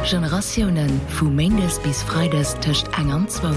Generatiounen, vu méindes bis freides tëscht eng an zwou.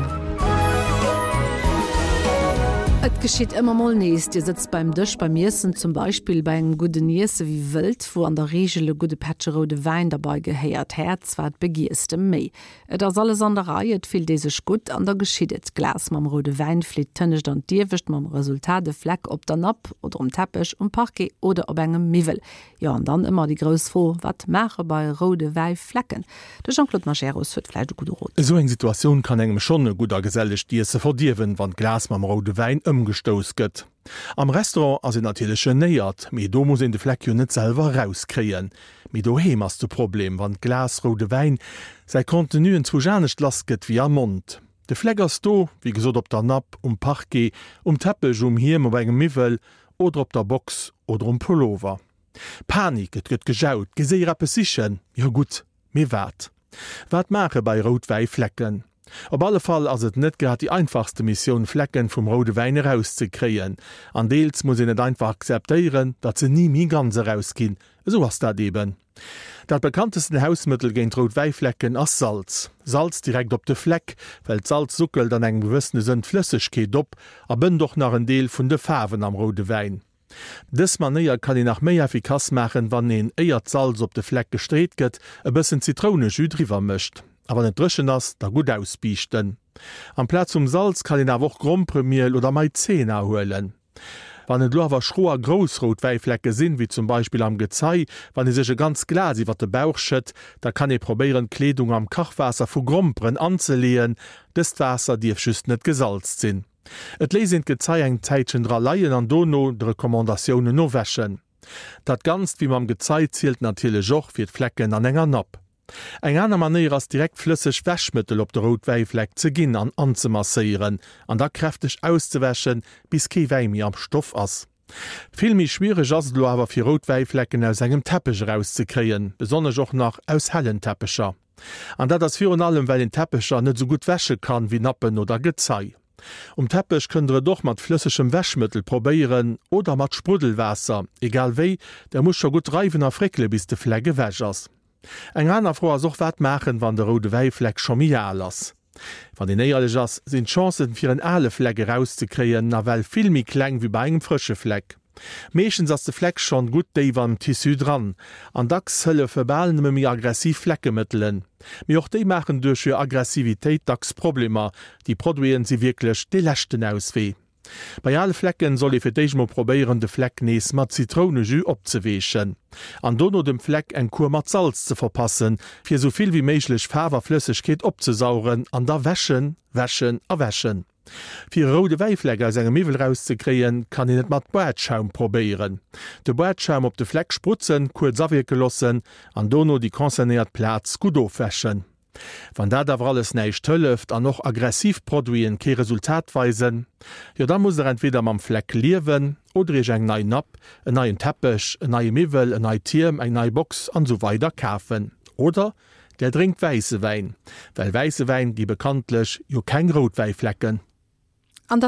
Et geschitt ëmmer mol nees, Dir sëtzt beim Dësch beim Iessen, zum Beispill bei engem gudden Iesse wéi wëllt, wou an der Reegel e gudde Pättche roude Wäin derbei gehéiert. Häerz, wat begiers de méi? Et ass alles an der Rei, et fillt ee sech gutt an da geschitt et, D'Glas mam roude Wäin flitt d'Tënnescht an d'Iewescht, mam Resultat e Fleck op der Napp oder um Teppech, um Parquet oder op engem Miwwel. Jo, an dann ëmmer déi grouss Fro, Wat maache bei roude Wäiflecken? De Jean-Claude Majerus huet vläicht e gudde Rot. Esou eng Situatioun kann engem schonn e gutt a gesellegt Iesse verdierwen, wann d'Glas mam roude Wäin ëmgestouss gëtt. Am Restaurant ass een natierlech genéiert, mee do muss een de Fleck jo net selwer erauskréien. Mee doheem ass de Problem, wann d'Glas roude Wäin säi Contenu enzwousch anescht lass gëtt wéi am Mond. De Fleck ass do, wéi gesot op der Napp, um Parquet, um Teppech, um Hiem, op engem Miwwel oder op der Box oder um Pullover. Panik, et gëtt gejaut, géi séier eppes sichen, jo gutt, mee wat? Wat maache bei Routwäiflecken? Op alle Fall ass et net grad déi einfachste Missioun Flecken vum roude Wäin erauszekréien. An deels muss een et einfach akzeptéieren, datt se ni méi ganz erausginn. Esou ass dat eben. Dat bekanntesten Hausmëttel géint rout Wäiflecken ass Salz. Salz direkt op de Fleck, well d'Salz suckelt an engem gewëssene Sënn d'Flëssegkeet op a bënnt och nach en Deel vun de Faarwen am roude Wäin. Dës Manéier kann een nach méi effikass maachen, wann een, éier d'Salz op de Fleck gestreet gëtt, e bëssen Zitrounejus driwwer mécht. A wann et dréchen ass, da gutt ausbiischten. Amplaz vum Salz kann een awer och Gromperemiel oder Maizena huelen. Wann et elo awer schro a grouss rout Wäiflecke sinn, wéi zum Beispill am Gezei, wann ee sech e ganz Glas iwwer de Bauch schëtt, da kann ee probéieren d'Kleedung am Kachwaasser vu Gromperen anzeleeën. Dëst Waasser dierf just net gesalzt sinn. Et léisst een d'Gezei eng Zäitchen dra leien an dono de Recommandatiounen no wäschen. Dat Ganzt wéi mam Gezei zielt natierlech och fir d'Flecken an enger Napp. Eng aner Manéier ass direkt flësseg Wäschmëttel op de rout Wäifleck ze ginn an anzemasséieren an da kräfteg auszewäschen bis kee Wäi méi am Stoff ass. Vill méi schwiereg ass et elo awer fir rout Wäiflecken aus engem Teppech erauszekréien, besonnesch och nach aus hellen Teppecher. An dat ass virun allem well een Teppecher net esou gutt wäsche kann wéi Nappen oder Gezei. Um Teppech kënnt der et och mat flëssegem Wäschmëttel probéieren oder mat Spruddelwaasser, egal wéi, der musst scho gutt reiwen a fréckele bis de Fleck ewech ass. Eng aner Fro ass och wat maachen wann de roude Wäifleck scho méi al ass. Wann een éierlech ass, sinn d'Chancen fir en ale Fleck erauszekréien nawell vill méi kleng wéi bei engem frësche Fleck. Meeschtens ass de Fleck schonn gutt déif am Tissu dran an dacks hëllefe bal nëmme méi aggressiv Fleckemëttelen. Mee och déi maachen duerch hir Aggressivitéit dacks Problemer. Déi Produiten si wierklech dee leschten Auswee. Bei ale Flecken soll ee fir d'éischt mol probéieren de Fleck nees mat Zitrounejus opzeweechen an dono dem Fleck eng Kur mat Salz ze verpassen, fir esou vill wéi méiglech Faarf a Flëssegkeet opzesaugen an da wäschen, wäschen a wäschen. Fir e roude Wäifleck aus engem Miwwel rauszekréien, kann een et mat Badschaum probéieren. De Badschaum op de Fleck sprutzen, kuerz awierke loossen an dono déi concernéiert Plaz gutt ofwäschen. Wann dat awer alles näischt hëlleft an och aggressiv Produiten kee Resultat weisen, jo da musst der entweder mam Fleck liewen oder iech eng nei Napp, en neien Teppech, en neie Miwwel, en neit Hiem, eng nei Box an esou weider kafen. Oder der drénkt wäisse Wäin, well wäisse Wäin gi bekanntlech jo keng rout Wäiflecken. An dat.